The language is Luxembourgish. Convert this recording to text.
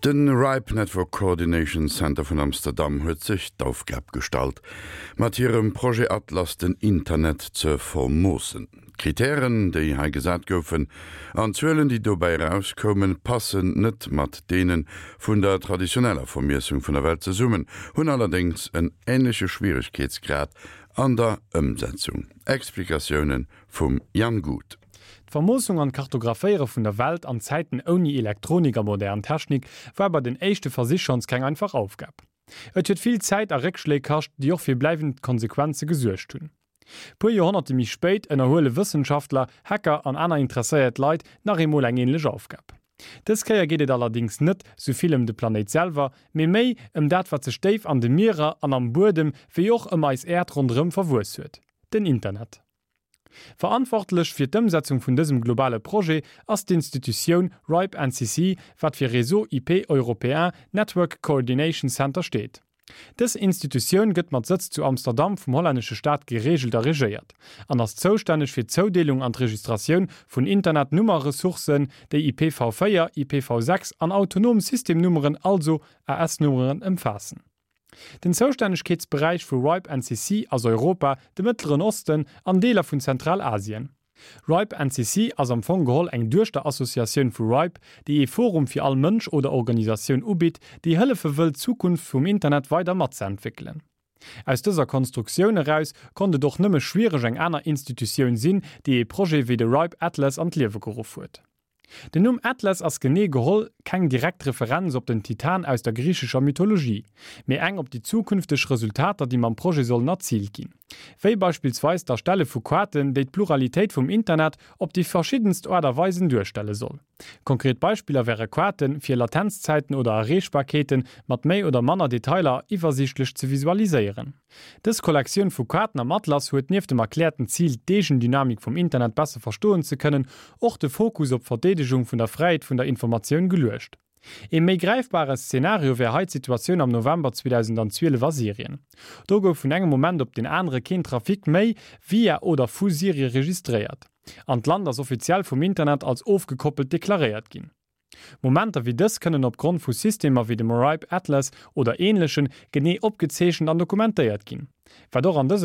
De RIPE Network Coordination Center vun Amsterdam huet sech d'Aufgab gestallt, mat hirem Projet Atlas den Internet ze vermoossen. D'Kritären, déi hei gesat goufen, an d'Zuelen, déi dobäi erauskoumen, passen net mat deene vun der traditioneller Vermiessung vun der Welt zesummen, hunn allerdéngs en änleche Schwieregkeetsgrad an der Ëmsetzung. Explikatioune vum Jan Guth. D'Vermoossung an d'Kartographéiere vun der Welt an Zäiten ouni Elektronik a modern Technik war bei den éischte Versich schonns keng einfach Aufgab. Et huet vill Zäit a Réckschléi kascht, déi och fir bleiwend Konsequenze gesuergt hunn. Puer Joerhonnerte méi spéit ënnerhuele Wëssenschaftler, Hacker an aner interesséiert Leit nach eemol eng änlech Aufgab. Dës Kéier geet et allerdéngs net sou vill ëm de Planéit selwer, mee méi ëm dat wat sech déif an de Mierer an am Buedem, wéi och ëm eis Äerd ronderëm verwuess huet, den Internet. Verantwortlech fir d'Ëmsetzung vun dësem globale Projet ass d'Institutioun RIPE NCC, wat fir Réseau IP Européen Network Coordination Center steet. Dës Institutioun gëtt mat Sëtz zu Amsterdam vum hollännesche Staat gereegelt a regéiert an ass zoustänneg fir d'Zoudeelung an d'Registratioun vun Internetnummerressourcen, déi IPv4, IPv6 an autonom Systemnummeren, also AS-Nummeren, ëmfaassen. Den Zoustännegkeetsberäich vu RIPE NCC ass Europa, de Mëttleren Osten an Deeler vun Zentralasien. RIPE NCC ass am Fong geholl eng Duechterassociatioun vu RIPE, déi ee Forum fir all Mënsch oder Organisatioun ubitt, déi hëllefe wëll d'Zukunft vum Internet weider matzeentwéckelen. Aus dëser Konstruktioun eraus konnt et och nëmme schwiereg eng aner Institutioun sinn, déi ee Projet wéi de RIPE Atlas an d'Liewe geruff huet. Den Numm Atlas ass genee geholl keng direkt Referenz op den Titan aus der griichescher Mythologie, mee eng op déi zukünfteg Resultater, déi mam Projet sollen erziilt ginn. Wéi beispillsweis d'Erstelle vu Kaarten, déi d'Pluralitéit vum Internet op déi verschiddenst Aart a Weisen duerstelle soll. Konkret Beispiller wäre Kaarten, fir Latenzzäiten oder Erreechbarkeete mat méi oder manner Detailer iwwersiichtlech ze visualiséieren. Dës Kollektioun vu Kaarten am Atlas huet nieft dem erkläerten Zil, d'Eegendynamik vum Internet besser verstoen ze kënnen, och de Fokus op d'Verdeedegung vun der Fräiheet vun der Informatioun geluecht. Ee méi gräifbare Szenario wär hei d'Situatioun am November 2012 a Syrien. Do gouf vun engem Moment op deen anere keen Trafic méi via oder vu Syrie registréiert an d'Land ass offiziell vum Internet als ofgekoppelt deklaréiert ginn. Momenter wéi dës kënnen opgrond vu Systemer wéi dem RIPE Atlas oder änlechen genee opgezeechent an dokumentéiert ginn, wat och an dësem.